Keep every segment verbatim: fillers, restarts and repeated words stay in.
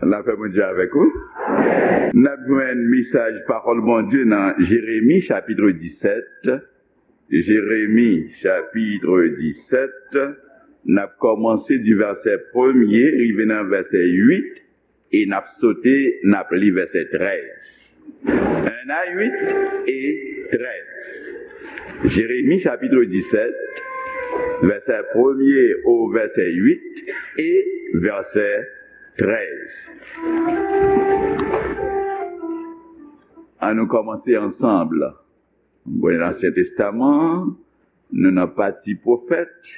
Lapè Bondye avèk ou. N ap jwenn mesaj pawòl Bondye nan Jeremi chapit disèt. Jeremi chapit disèt. N ap kòmanse di vèsè premye rive nan vèsè uit e n ap sote, n ap li vèsè trèz. Un à huit et treize. Jeremi chapit disèt, vèsè premye o vèsè uit e vèsè trèz. Ann nou kòmanse ansanm. Bon, Ansyen Testaman, nou nan pati pwofèt,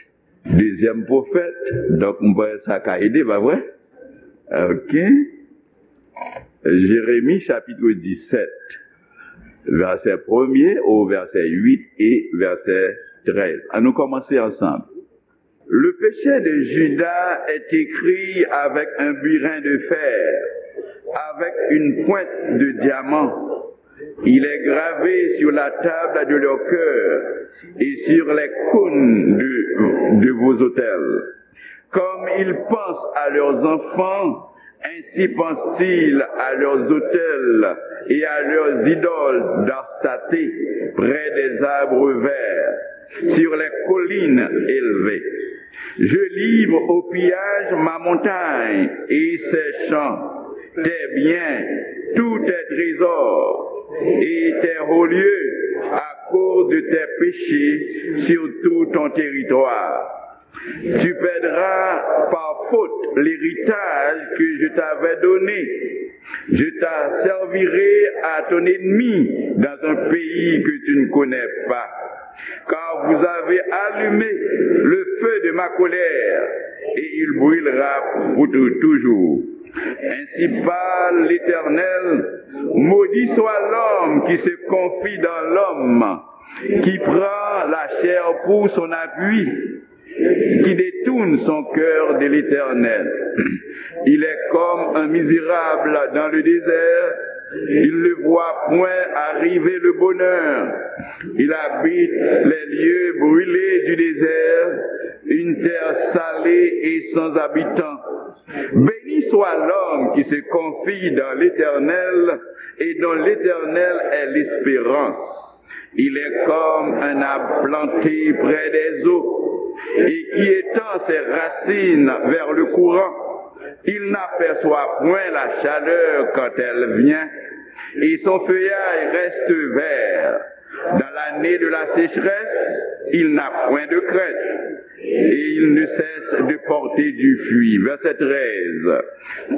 dezyèm pwofèt, donk m panse sa ka ede, pa vre? Ok. Jeremi chapit disèt, vèsè premye o vèsè uit e vèsè trèz. Ann nou kòmanse ansanm. Le péché de Juda est écrit avec un burin de fer, avec une pointe de diamant. Il est gravé sur la table de leur cœur et sur les cônes de, de vos autels. Comme ils pensent à leurs enfants, ainsi pensent-ils à leurs autels et à leurs idoles d'Astarté, près des arbres verts, sur les collines élevées. Je livre au pillage ma montagne et ses champs, tes biens, tous tes trésors et tes hauts lieux, à cause de tes péchés sur tout ton territoire. Tu perdras par faute l'héritage que je t'avais donné. Je t'asservirai à ton ennemi dans un pays que tu ne connais pas. Car vous avez allumé le feu de ma colère, et il brûlera pour tou-, toujours. Ainsi parle l'Éternel, maudit soit l'homme qui se confie dans l'homme, qui prend la chair pour son appui, qui détourne son cœur de l'Éternel. Il est comme un misérable dans le désert. Il ne voit point arriver le bonheur. Il habite les lieux brûlés du désert, une terre salée et sans habitants. Béni soit l'homme qui se confie dans l'Éternel et dont l'Éternel est l'espérance. Il est comme un arbre planté près des eaux et qui étend ses racines vers le courant. Il n'aperçoit point la chaleur quand elle vient, et son feuillage reste vert. Dans l'année de la sécheresse, il n'a point de crainte, et il ne cesse de porter du fruit. Verset treize.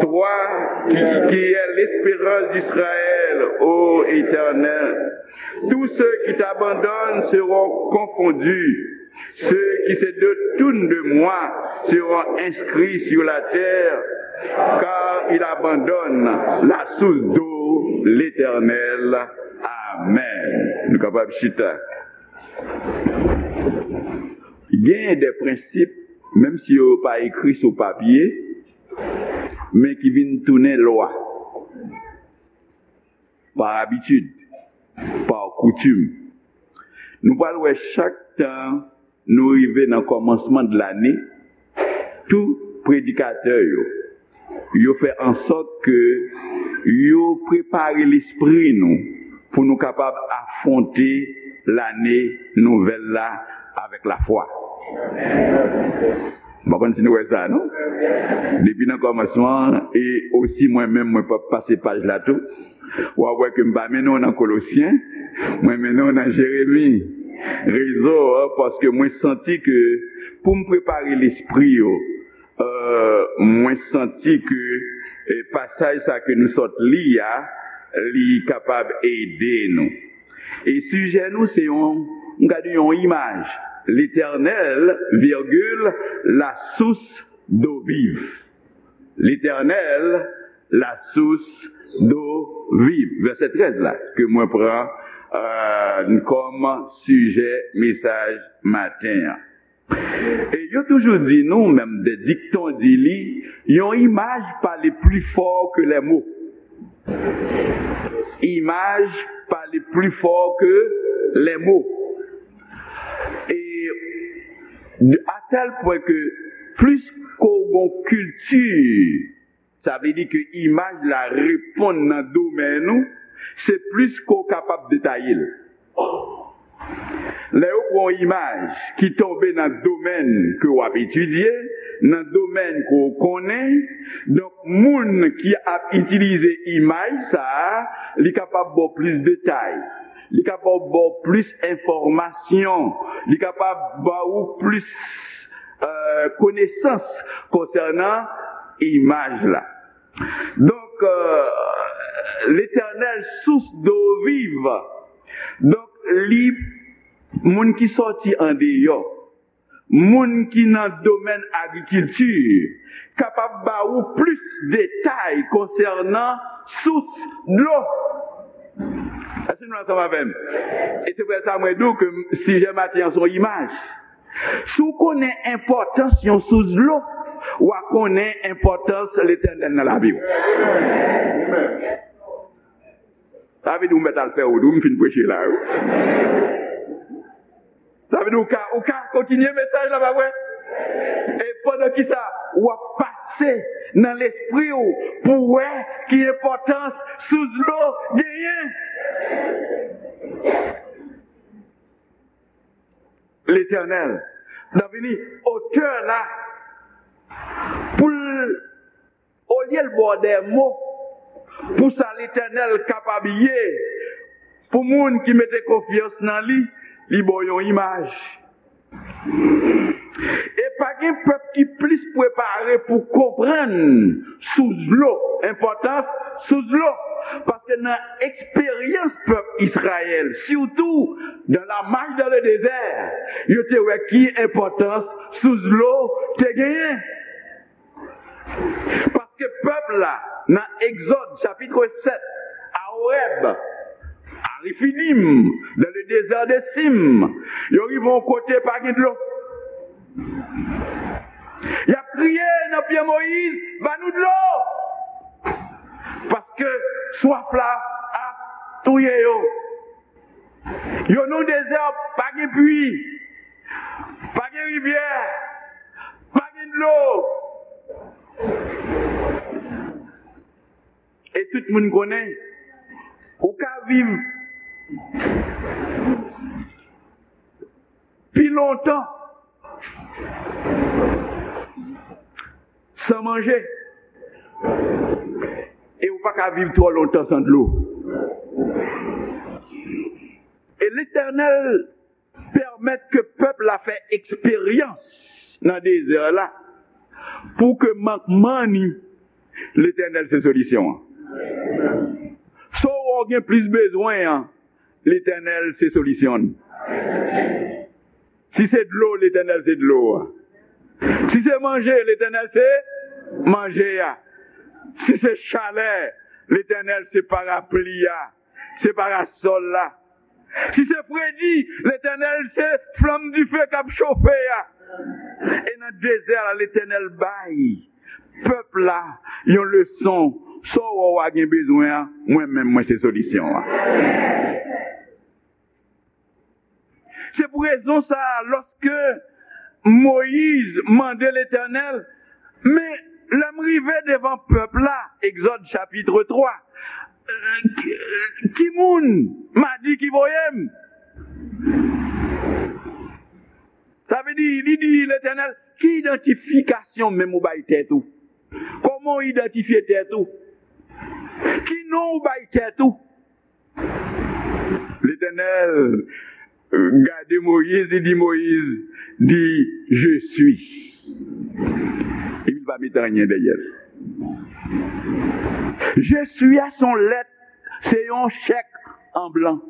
Toi qui, qui es l'espérance d'Israël, ô Éternel, tous ceux qui t'abandonnent seront confondus. Ceux qui se détournent de moi seront inscrits sur la terre, car ils abandonnent la source d'eau, l'Éternel. Amen. Nou kapab chita. Gen de prensip, menm si yo pa ekri sou papye, men ki vin tounen lwa, pa abitid, pa koutim. Nou pral wè chak tan nou rive nan kòmansman de lane, tout predikatè yo, yo fè an sòt ke yo prepare lespri nou pou nou kapab afwonte lane nouvèl la avèk lafwa. M pa konn si nou wè sa, non? Depi nan kòmansman, e osi mwen menm, mwen p ap pase paj la tou. W ap wè ke m pa mennen w nan Kolosyen, mwen mennen w nan Jeremi. Rezon an, paske mwen santi ke pou m prepare lespri yo, euh, mwen santi ke, eh, pasaj sa ke nou sot li a, li kapab ede nou. E sijè nou se yon, m ka di yon imaj. Letènèl, virgil, la source d'eau vive. Letènèl, la source d'eau vive. Vèsè trèz la, ke mwen pran, euh, kòm sijè mesaj maten an. E yo toujou di nou, menm de dikton di li, yon imaj pale pli fò ke lè mo. Imaj pale pli fò ke lè mo. E de, a tèl pwen ke plis ke w gon kilti Sa vle di ke imaj la reponn nan domèn ou, se plis ke w kapab detaye l. Lè yo pran yon imaj ki tonbe nan domèn ke w ap etidye, nan domèn ke w konnen, donk moun ki ap itilize imaj sa a, li kapab ba w plis detay, li kapab ba w plis enfòmasyon, li kapab ba ou plis, euh, konesans konsènan imaj la. Donk, euh, Letènèl, sous dlo viv. Donk, li, moun ki sòti andeyò, moun ki nan domèn agrikilti, kapab ba ou plis detay konsènan sous dlo. Èske nou ansanm avè m? E se pou sa mwen di w ke sijè maten an se yon imaj. Si w konnen enpòtans yon sous dlo, w a konnen enpòtans Letènèl nan lavi w. Sa vle di w mèt al fè wout, wi, m fin preche la, wi. Sa vle di w ka, ou ka kontinye mesaj la, pa vre? E pandan ki sa, w ap pase nan lespri w pou w wè ki enpòtans sous dlo genyen. Letènèl, nan vini otè la, pou l, olye l ba w dè mo, pou sa Letènèl kapab ye, pou moun ki mete konfyans nan li, li ba w yon imaj. E pa gen pèp ki plis prepare pou konprann sous dlo, enpòtans sous dlo. Paske nan eksperyans pèp Izrayèl, sitou dans la marche dans le désert, yo te wè ki enpòtans sous dlo te genyen. Paske pèp la, nan Egzòd chapit sèt, a Orèb, a Refidim, dans le désert de Sim, yo rive yon kote pa gen dlo. Y ap kriye nan pye Moyiz, "Ba nou dlo!" Paske swaf la ap touye yo. Yo nan dezè, pa gen pwi, pa gen rivyè, pa gen dlo. E tout moun konnen, ou ka viv pi lontan san manje. E ou pa ka viv twò lontan san dlo. E Letènèl pèmèt ke pèp la fè eksperyans nan dezè la, pou ke mankman ni, Letènèl se solisyon an. Sa w gen plis bezwen an, Letènèl se solisyon l. Si se dlo, Letènèl se dlo a. Si se manje, Letènèl se manje a. Si se chalè, Letènèl se parapli a, se parasòl la. Si se fredi, Letènèl se flanm dife k ap chofe a. E nan dezè la, Letènèl bay pèp la yon leson. Sa w wè w a gen bezwen an, mwen menm, mwen se solisyon an. Se pou rezon sa a, lòske Moyiz mande Letènèl, "Men lè m rive devan pèp la," Egzòd chapit twa, "ki, ki moun m a di ki voye m?" Sa vle di, li di Letènèl, "Ki idantifikasyon menm ou bay tèt ou? Kòman w idantifye tèt ou? Ki non ou bay tèt ou?" Letènèl gade Moyiz, li di Moyiz, di, "Je suis." Epi li pa mete anyen dèyè l. "Je suis" a se yon lèt, se yon chèk an blan.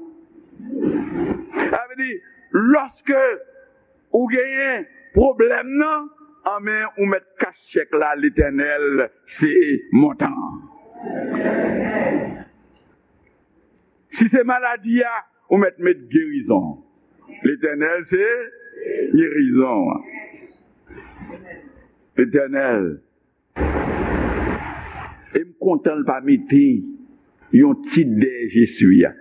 Sa vle di, lòske ou genyen pwoblèm nan, anben ou mèt kach chèk la, Letènèl se montan an. Si se maladi a, ou mèt met gerizon. Letènèl se gerizon an. Letènèl. E m kontan l pa mete yon tit dèyè "Je suis" a.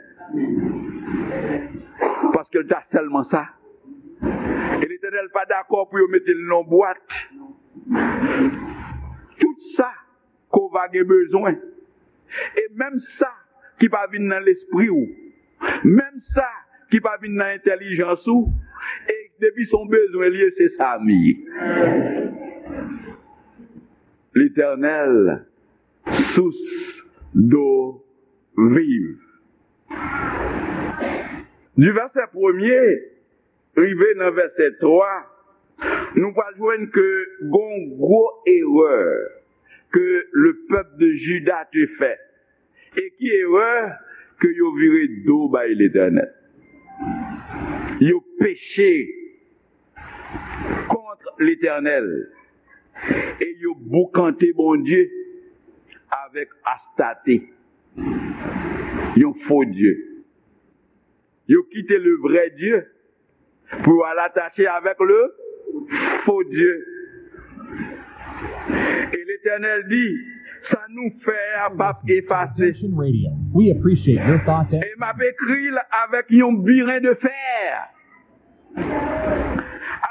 Paske l ta sèlman sa. E Letènèl pa dakò pou yo mete l nan bwat. Tout sa ke w va gen bezwen. E menm sa ki pa vin nan lespri w, menm sa ki pa vin nan entèlijans ou, e depi se yon bezwen li ye, se sa m ye. Letènèl, sous dlo viv. Du verset premier rive nan vèsè twa, nou pral jwenn ke gon gwo erè ke le pèp de Juda te fè. E ki erè? Ke yo vire do bay Letènèl. Yo peche kont Letènèl. E yo boukante Bondye avèk Astate, yon fo dye. Yo kite le vrè Dye pou yo al atache avèk le fo dye. E Letènèl di, sa nou fè a p ap efase. Conversation Radio. We appreciate your thoughts and E m ap ekri l avèk yon biren de fè,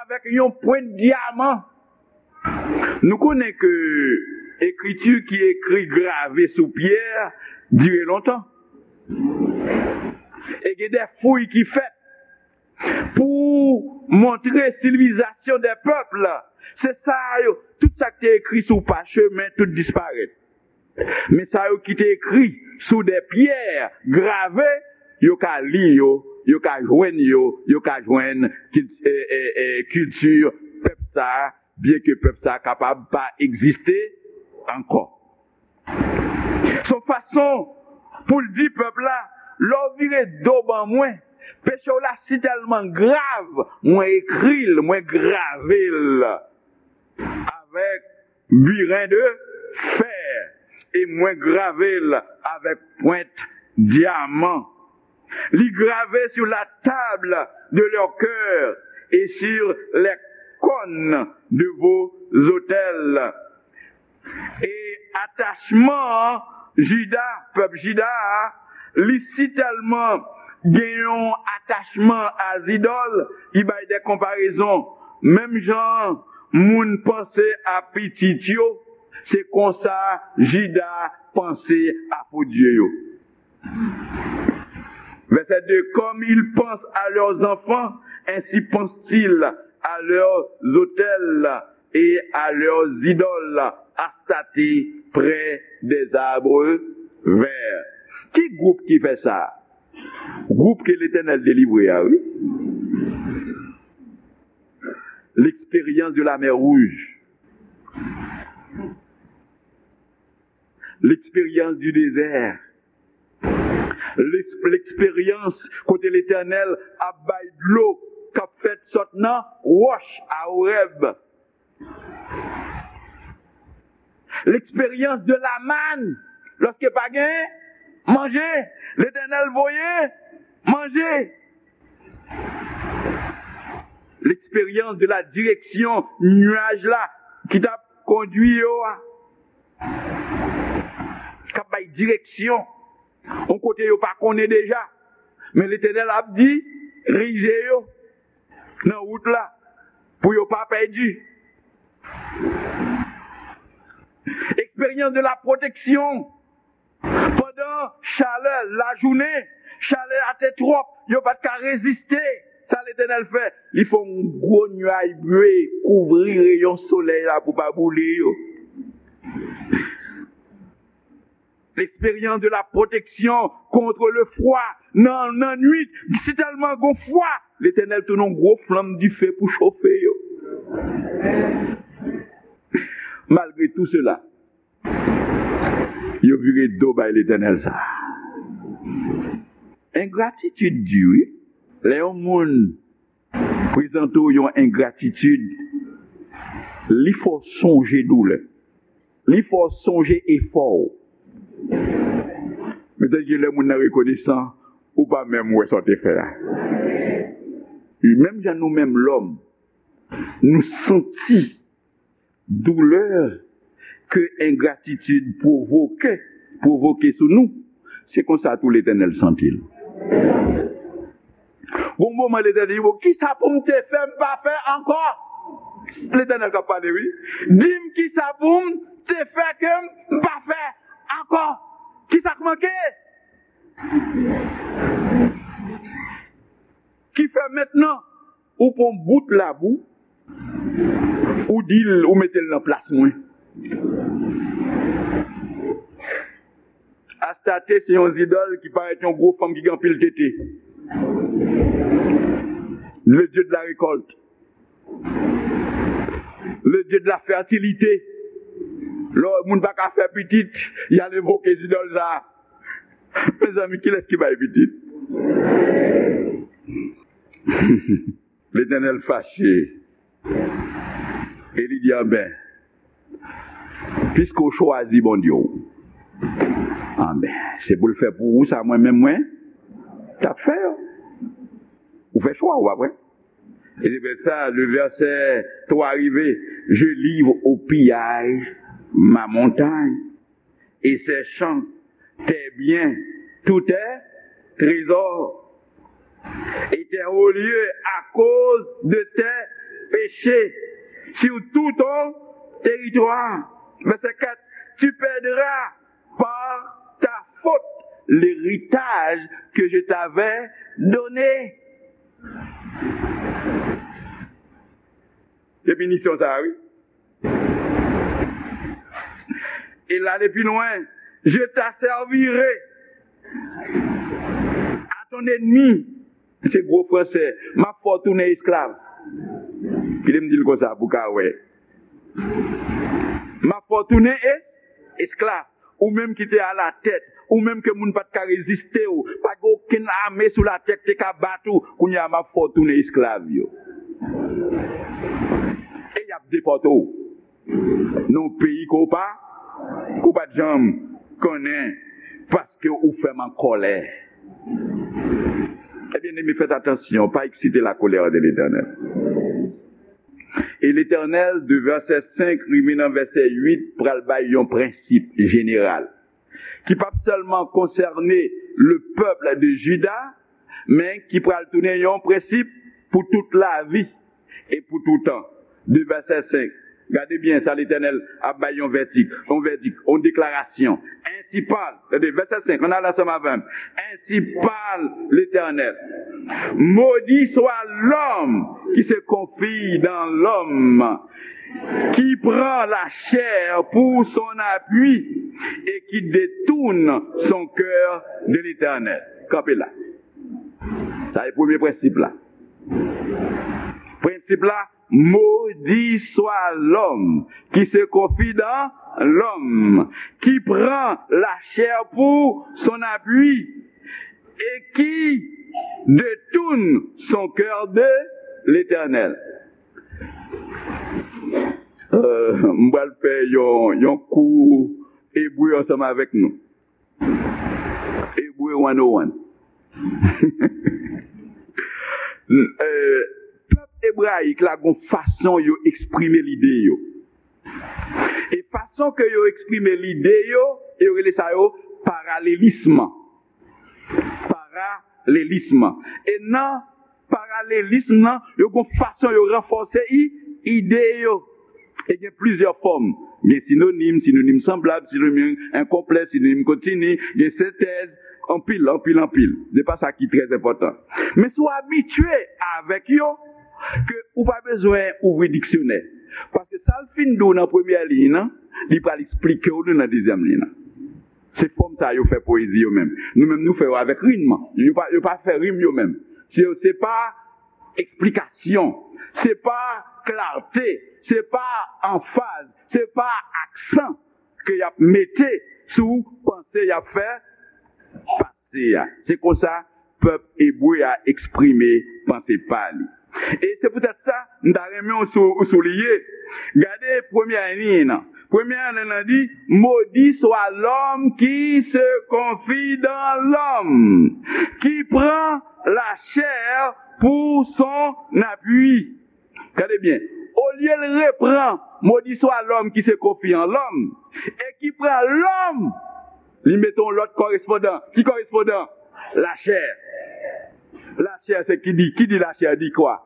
avèk yon pwent dyaman. Nou konnen ke ekriti ki ekri grave sou pyè dire lontan. E gen de fouy ki fèt pou montre sivilizasyon de pèp. Se sa yo, tout sa ki te ekri sou pachemen, tout disparèt. Men sa yo ki te ekri sou de pyè grave, yo ka li yo, yo ka jwenn yo, yo ka jwenn kil-, e, e, e, kilti pèp sa a, byenke pèp sa a kapab pa egziste ankò. Se yon fason pou l di pèp la, lè w vire do ban mwen, peche w la si tèlman grav, mwen ekri l, mwen grave l avèk biren de fè, e mwen grave l avèk pwent dyaman. Li grave sur la table de leur cœur et sur les cônes de vos autels. E atachman Jida, pèp Jida a, li si tèlman gen yon atachman a zidòl, li bay de konparezon. Menm jan moun panse a pitit yo, se konsa Jida panse a fo dye yo. Verset deux, comme ils pensent à leurs enfants, ainsi pensent-ils à leurs autels et à leurs idoles, Astarté près des arbres verts. Ki gwoup ki fè sa? Gwoup ke Letènèl delivre a, wi. L'expérience de la mer Rouge. L'expérience du désert. L'ex-, l'expérience kote Letènèl ap bay dlo k ap fèt sot nan wòch a Orèb. L'expérience de la manne, lòske pa gen manje, Letènèl voye manje. L'expérience de la direction, nyaj la ki t ap kondui yo a, k ap bay direksyon yon kote yo pa konnen deja. Men Letènèl ap dirije yo nan wout la pou yo pa pèdi. Expérience de la protection. Pandan chalè lajounen, chalè a te twòp, yo pa t ka reziste. Sa Letènèl fè? Li fè yon gwo nyaj bwe kouvri reyon solèy la pou pa boule yo. L'expérience de la protection contre le froid. Nan, nan nwit, si tèlman gon fwa, Letènèl tounen yon gwo flanm dife pou chofe yo. Malgre tou sela, yo vire do bay Letènèl sa. Engratitid di, wi. Lè yon moun prezante w yon engratitid, li fè w sonje doulè. Li fè w sonje efò w. Petèt gen lè moun nan rekonesan, ou pa menm wè sa w te fè a. Menm jan nou menm lòm, nou santi doulè ke engratitid pwovoke, pwovoke sou nou, se konsa tou Letènèl santi l. Gon moman Letènèl di, "Bon, kisa pou m te fè, m pa fè ankò?" Letènèl k ap pale, wi. Di m kisa pou m te fè ke m pa fè ankò. Kisa k manke? Ki fè mentnan ou pran bout labou, ou di l, ou mete l nan plas mwen. Astarte se yon zidòl ki parèt yon gwo fanm ki gen anpil tete. Le dieu de la récolte. Le dieu de la fertilité. Lè moun pa ka fè pitit, y al envoke zidòl sa a. Mezanmi, kilès ki bay pitit? Letènèl fache. E li di, anben, piske w chwazi Bondye w, anben, se pou l fè pou ou sa mwen menm mwen t ap fè yo. Ou fè chwa ou, pa vre? E se pou sa, le verset trois rive, je livre au pillage ma montagne et ses champs, tes biens, tous tes trésors, et tes hauts lieux à cause de tes péchés sur tout ton territoire. Verset quatre, tu perdras par ta faute l'héritage que je t'avais donné. Se pinisyon sa a, wi. E l ale pi lwen, je t'asservirai à ton ennemi. Se gwo fransè. M ap fè w tounen esklav. Kite m di l konsa pou w ka wè. M ap fè w tounen es, esklav. Ou menm ki te alatèt, ou menm ke moun pa t ka reziste w, pa gen okenn ame sou latè ki te ka bat ou, kounye a m ap fè w tounen esklav yo. E y ap depòte w nan yon peyi ke w pa, ke w pa t janm konnen, paske ou fè m an kòlè. E byeneme, fèt atansyon, pa eksite la colère de l'Éternel. E Letènèl, de vèsè senk rive nan vèsè uit, pral bay yon prensip jeneral ki p ap sèlman konsène le pèp de Jida, men ki pral tounen yon prensip pou tout lavi e pou toutan. De vèsè senk. Gade byen sa Letènèl ap bay yon vèdik, yon vèdik, yon deklarasyon. Ainsi parle, tande, vèsè senk, ann ale ansanm avè m. Ainsi parle l'Éternel. Maudit soit l'homme qui se confie dans l'homme, qui prend la chair pour son appui et qui détourne son cœur de l'Éternel. Kanpe la. Sa se premye prensip la. Prensip la, maudit soit l'homme qui se confie dans l'homme, qui prend la chair pour son appui et qui détourne son cœur de l'Éternel. Euh, m pral fè yon, yon kou ebre ansanm avèk nou. Ebre one oh one. Euh, pèp ebrayik la gon fason yo eksprime lide yo. E fason ke yo eksprime lide yo, yo rele sa yo paralelism. Paralelism. E nan paralelism nan, yo gon fason yo ranfòse i, ide yo. E gen plizyè fòm. Gen sinonim, sinonim sanblab, sinonim enkonplè, sinonim kontini, gen sentèz, anpil, anpil, anpil. Se pa sa ki trè enpòtan. Men si w abitye avèk yo, ke ou pa bezwen ouvri diksyonè. Paske sa l fin di w nan premyè liy nan, li pral eksplike w li nan dezyèm liy nan. Se fòm sa yo fè poezi yo menm. Nou menm nou fè yo avèk rim. Yo pa, yo pa fè rim yo menm. Se, se pa eksplikasyon, se pa klate, se pa anfaz, se pa aksan ke y ap mete sou panse y ap fè pase a. Se konsa pèp ebre a eksprime panse pa li. E se poutèt sa, m ta renmen w sou, w souliye. Gade premyè liy nan. Premyè liy nan di, maudit soit l'homme qui se confie dans l'homme, qui prend la chair pour son appui. Gade byen. Olye l repran, maudit soit l'homme qui se confie en l'homme, e ki pran lòm, li mete yon lòt korespondan. Ki korespondan? Lachè. Lachè se ki di, ki di lachè di kwa?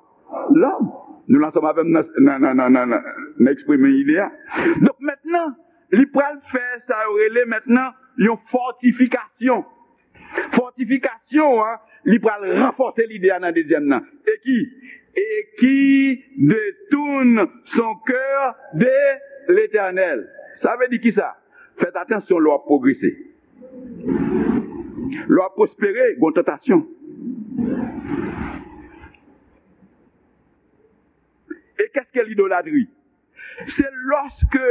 Lòm. Nou la ansanm avè m nan, nan, nan, nan, nan, nan, nan eksprime ide a. Donk, mentnan, li pral fè sa yo rele mentnan yon fòtifikasyon. Fòtifikasyon an, li pral ranfòse lide a nan dezyèm nan. E ki? Et qui détourne son cœur de l'Éternel. Sa vle di ki sa? Fèt atansyon lè w ap pwogrese. Lè w ap pwospere, gon tantasyon. E qu'est-ce que l'idolâtrie? Se lòske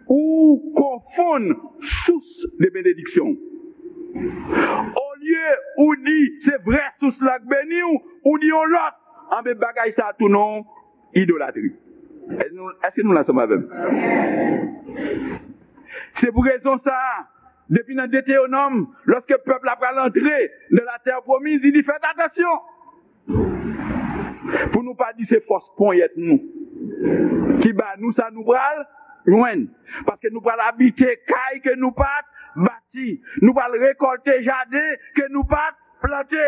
ou konfonn sous de benediksyon. Olye ou di se vrè sous la k beni w, ou di yon lòt, anben bagay sa a tou non idolatri. Èske nou, èske nou la ansanm avè m? Se pou rezon sa a, depi nan Detewonòm, lòske pèp la pral antre nan latè pwomiz, li di, fèt atansyon pou nou pa di se fòs ponyèt nou ki ba nou sa nou pral jwenn. Paske nou pral abite kay ke nou pa t bati. Nou pral rekòlte jaden ke nou pa t plante.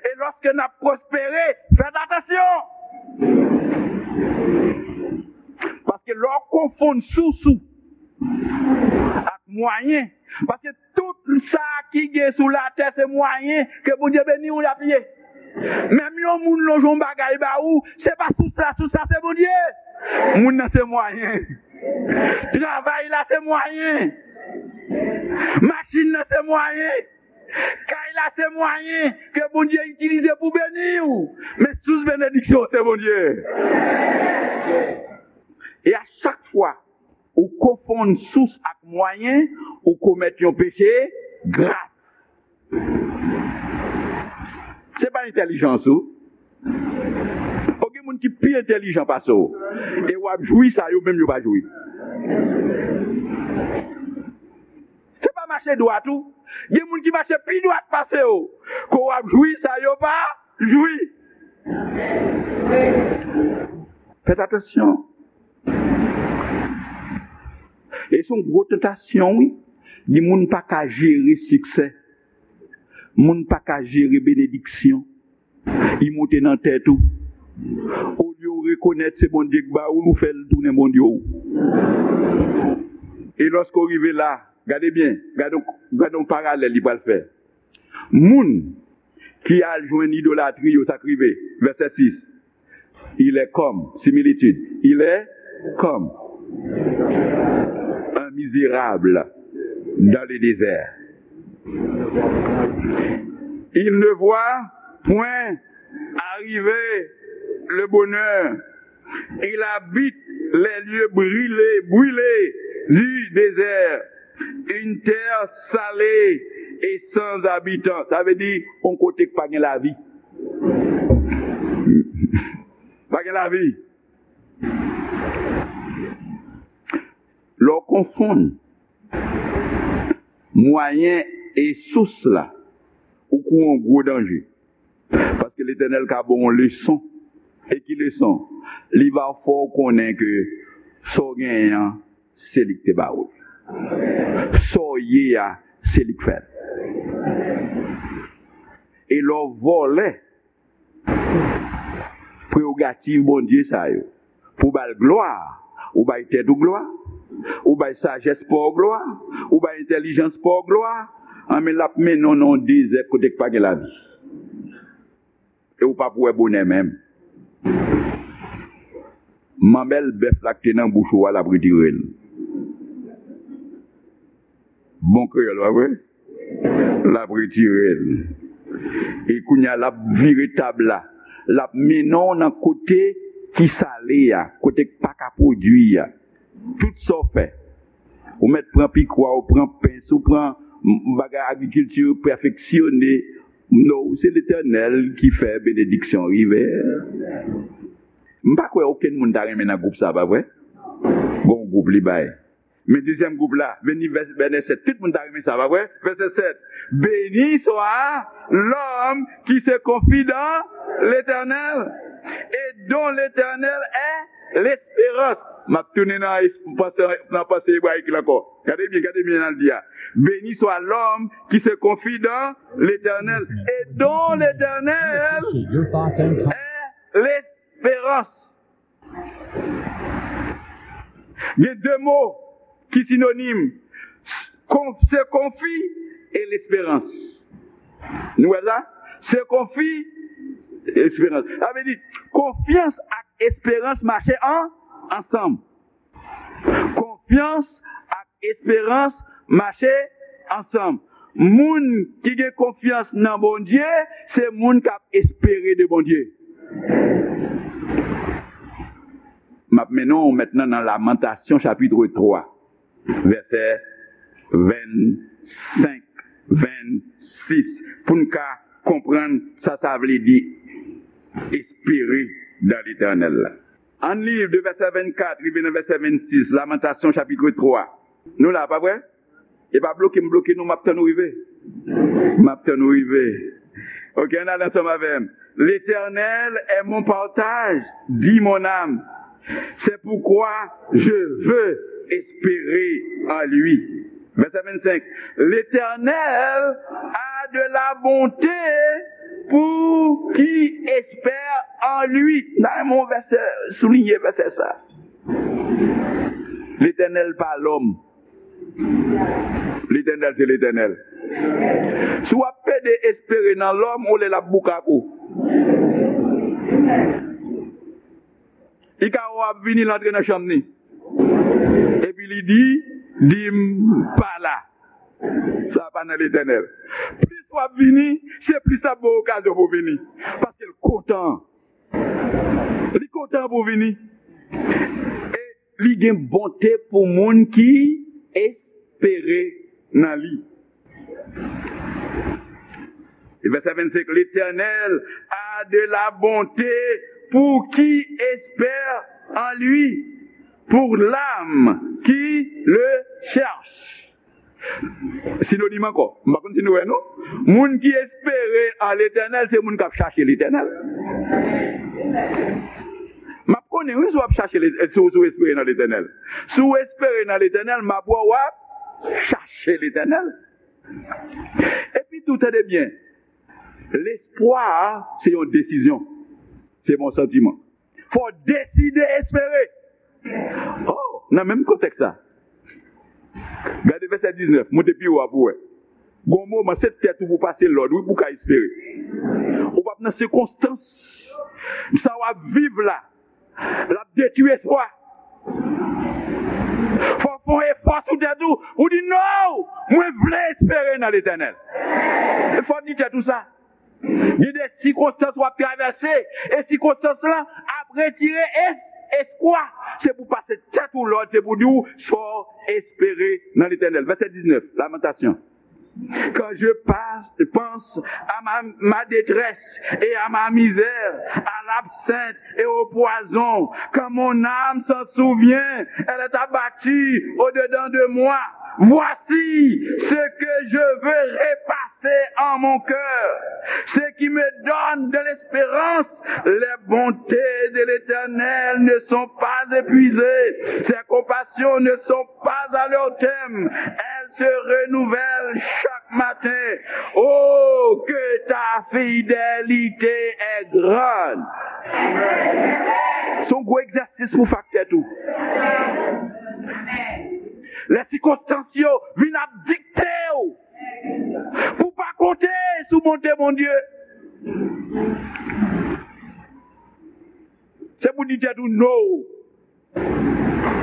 E lòske n ap pwospere, fèt atansyon. Paske lè w konfonn sous ou ak mwayen, paske tout sa ki gen sou latè se mwayen ke Bondye beni w y ap ye. Menm yon moun lonje yon bagay ba ou, se pa sous la, sous la se Bondye. Moun nan se mwayen. Travay la se mwayen. Machin nan se mwayen. Kay la se mwayen ke Bondye itilize pou beni w. Men sous benediksyon se Bondye. E a chak fwa ou konfonn sous ak mwayen, ou komèt yon peche grav. Se pa entèlijans ou. O, gen moun ki pi entèlijan pase w. E w ap jwi sa yo menm yo pa jwi. Se pa mache dwat ou. Gen moun ki mache pi dwat pase w. Ke w ap jwi sa yo pa jwi. Fèt atansyon. E se yon gwo tantasyon, wi. Di moun pa ka jere siksè. Moun pa ka jere benediksyon. Li monte nan tèt ou. Olye w rekonèt se Bondye k ba ou l, ou fè l tounen bondye w. E lòske w rive la, gade byen, gade, gade yon paralèl li pral fè. Moun ki al jwenn idolatri yo, sa k rive? Vèsè sis. Il est comme, similitude, il est comme un misérable dans le désert. Il ne voit point arriver le bonheur. Il habite les lieux brûlés, brûlés du désert, une terre salée et sans habitants. Sa vle di, yon kote k pa gen lavi. Pa gen lavi. Lè w konfonn mwayen e sous la, ou kouri yon gwo danje. Paske Letènèl ka ba w yon leson. E ki leson? Li va fè w konnen ke sa w genyen an, se li k te ba ou l. Sa w ye a, se li k fè l. E lè w vòlè prerogativ Bondye sa yo, pou w ba l glwa, ou bay tèt ou glwa, ou bay sajès pa w glwa, ou bay entèlijans pa w glwa, anben l ap mennen w nan yon dezè kote k pa gen lavi. E ou p ap wè bonè menm. Manmèl bèf la k te nan bouch ou a, l ap retire l. Bon kreyòl, pa vre? L ap retire l. E kounye a, l ap vire tab la. L ap mennen w nan kote ki sale a, kote k pa ka pwodui a. Tout sa w fè, ou mèt pran pikwa, ou pran pens, ou pran m-, bagay agrikilti pèfeksyone. Non, se Letènèl ki fè benediksyon rive. M pa kwè okenn moun ta renmen nan gwoup sa, pa vre? Bon, gwoup li bay. Men dezyèm gwoup la, vini vè-, vèsè sèt. Tout moun ta renmen sa, pa vre? Vèsè sèt. Béni soit l'homme qui se confie dans l'Éternel et dont l'Éternel est l'espérance. M ap tounen nan es-, panse, nan panse ebrayik la ankò. Gade byen, gade byen nan l di a. Béni soit l'homme qui se confie dans l'Éternel et dont l'Éternel est l'espérance. Gen de mo ki sinonim, se konfi e lesperans. Nou wè sa? Se konfi, esperans. Sa vle di, konfyans ak esperans mache an, ansanm. Konfyans ak esperans mache ansanm. Moun ki gen konfyans nan Bondye, se moun k ap espere de Bondye. M ap mennen w mentnan nan Lamantasyon chapit twa, vèsè vennsenk, vennsis, pou n ka konprann sa sa vle di espere dans l'Éternel la. Ann li de vèsè vennkat rive nan vèsè vennsis, Lamantasyon chapit twa. Nou la, pa vre? E pa bloke m bloke nou, m ap tann ou rive. M ap tann ou rive. Ok, ann al ansanm avè m. L'Éternel est mon partage, dit mon âme. C'est pourquoi je veux espérer en lui. Vèsè vennsenk. L'Éternel a de la bonté pour qui espère en lui. Nan yon vèsè, souliye vèsè sa. Letènèl pa lòm. Letènèl se Letènèl. Si w ap pede espere nan lòm, ou lè l ap boukak ou. Li ka wè w ap vini, l antre nan chanm ni. Epi li di, di m pa la. Sa pa nan Letènèl. Plis w ap vini, se plis l ap ba w okazyon pou w vini. Paske l kontan. Li kontan pou w vini. E li gen bonte pou moun ki espere nan li. E vèsè vennsenk, L'Éternel a de la bonté pour qui espère en lui, pour l'âme qui le cherche. Sinonim ankò. M pa konn si nou wè, non? Moun ki espere an Letènèl, se moun k ap chache Letènèl. M ap konnen, wi, si w ap chache, Let-, si w, si w espere nan Letènèl. Si w espere nan Letènèl, m ap wè w ap chache Letènèl. Epi tou, tande byen, lespwa, se yon desizyon. Se pa yon santiman. Fò w deside espere. Oh, nan menm kontèks sa. Gade vèsè diznèf, monte pi wo a pou w wè. Gon moman, se tèt ou pou pase lòd, wi, pou w ka espere. Ou p ap nan sikonstans. Sa w ap viv la, l ap detwi espwa. Fò w fè yon efò sou tèt ou, ou di, "Non, mwen vle espere nan Letènèl." E fò w di tèt ou sa. Gen de sikonstans w ap travèse, e sikonstans lan ap retire es-, espwa. Se pou pase tèt ou lòd, se pou di w, fò w espere nan Letènèl. Vèsè diznèf, Lamantasyon. Quand je passe, pense à ma, ma détresse et à ma misère, à l'absinthe et au poison, quand mon âme s'en souvient, elle est abattue au-dedans de moi. Voici ce que je veux repasser en mon cœur, ce qui me donne de l'espérance. Les bontés de l'Éternel ne sont pas épuisées, ses compassions ne sont pas à leur terme, elles se renouvellent chaque matin. Oh, que ta fidélité est grande. Se yon gwo egzèsis pou fè ak tèt ou. Lè sikonstans yo vin ap dikte w pou w pa konte sou bonte Bondye, se pou di tèt ou no.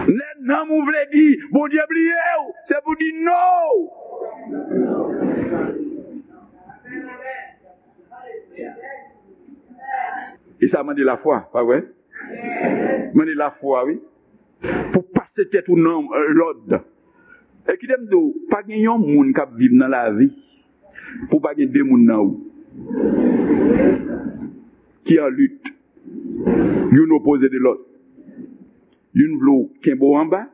Lè nanm ou vle di Bondye bliye w, se pou di no. E sa mande lafwa, pa vre? Mande lafwa, wi. Pou pase tèt ou nan, euh, lòd. E kite m di w, pa gen yon moun k ap viv nan lavi pou pa gen de moun nan ou ki an lit. Youn opoze de lòt. Youn vle w kenbe w anba,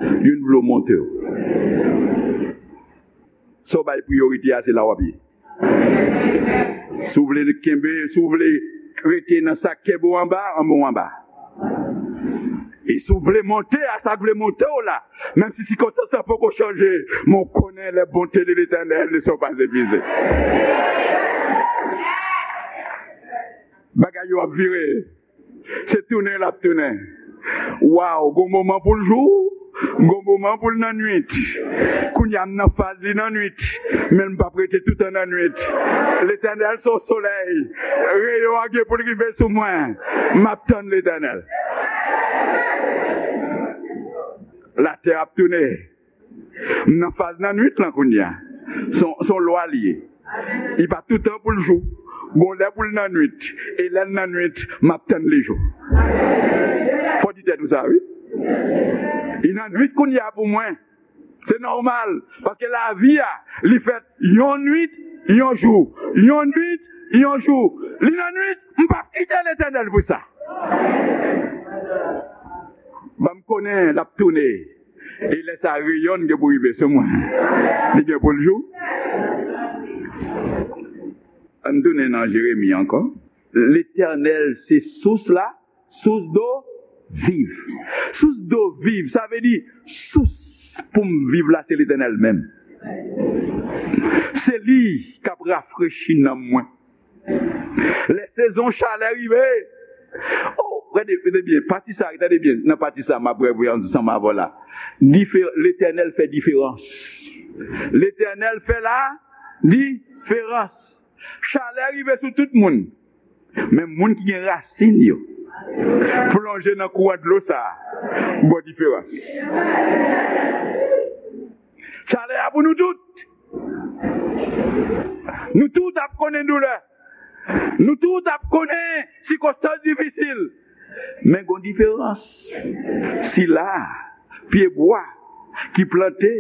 youn vle w monte w. Sa w bay priyorite a, se la w ap ye. Si w vle kenbe, si w vle rete nan sa k kenbe w anba, anba w anba. E si w vle monte a sa k vle monte w la, menm si sikonstans lan poko chanje, men w konnen les bontés de l'Éternel ne sont pas épuisées. Bagay yo ap vire. Se tounen l ap tounen. Waw, gon moman pou l jou, gon moman pou l nan nwit. Kounye a m nan faz li nan nwit, men m p ap rete toutan nan nwit. Letènèl se yon solèy, reyon an gen pou l rive sou mwen. M ap tann Letènèl. Latè ap tounen. M nan faz nan nwit lan kounye a. Se yon, se yon lwa li ye. Li pa toutan pou l jou. Gon lè pou l nan nwit. E lè l nan nwit, m ap tann li jou. Fò di tèt ou sa, wi. Li nan nwit kounye a pou mwen. Se nòmal. Paske lavi a, li fèt yon nwit, yon jou. Yon nwit, yon jou. Li nan nwit, m p ap kite Letènèl pou sa. Ban m konnen l ap tounen. E lè sa, reyon gen pou rive sou mwen. Li gen pou l jou. Ann tounen nan Jeremi ankò. Letènèl se sous la, sous do viv. Sous do viv, sa vle di sous pou m viv la, se Letènèl menm. Se li k ap rafrechi nanm mwen. Lè sezon chalè rive, oh, gade, gade byen, pati sa, tande byen, nan pati sa, m ap revwe ansanm avè w la. Difer-, Letènèl fè diferans. Letènèl fè la diferans. Chalè rive sou tout moun. Men moun ki gen rasin yo plonje nan kouran dlo sa a, gon diferans. Chalè a pou nou tout. Nou tout ap konnen doulè. Nou tout ap konnen sikonstans difisil. Men gon diferans. Sila a, pyebwa ki plante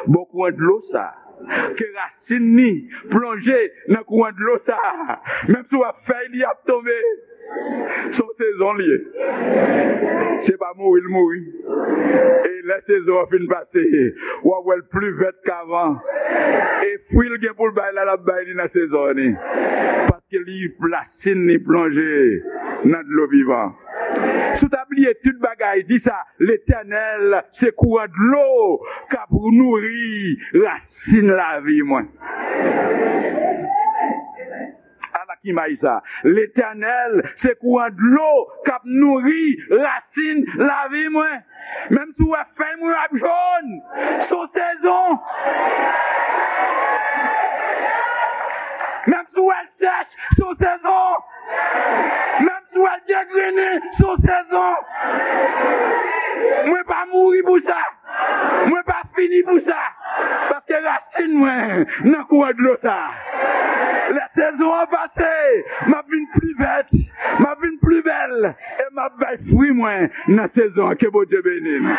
bò kouran dlo sa a, ke rasin ni plonje nan kouran dlo sa a, menm si w ap fèy li ap tonbe. Se yon sezon li ye. Se pa mouri l mouri. E lè sezon an fin pase, w ap wè l pli vèt k avan. E fwi l gen pou l bay la, l ap bay li nan sezon an ni. Paske li, rasin ni plonje nan dlo vivan. Si w ta bliye tout bagay, di sa, Letènèl se kouran dlo k ap nouri rasin lavi mwen. Ala k imaj sa. Letènèl se kouran dlo k ap nouri rasin lavi mwen. Menm si w wè fèy mwen ap jòn, se yon sezon. Menm si w wè l sèch, se yon sezon. Menm si w wè l degrennen, se yon sezon. Mwen pa mouri pou sa. Mwen pa fini pou sa. Paske rasin mwen nan kouran dlo sa. Lè sezon an pase, m ap vin pli vèt, m ap vin pli bèl, e m ap bay fwi mwen nan sezon an. Ke Bondye beni nou.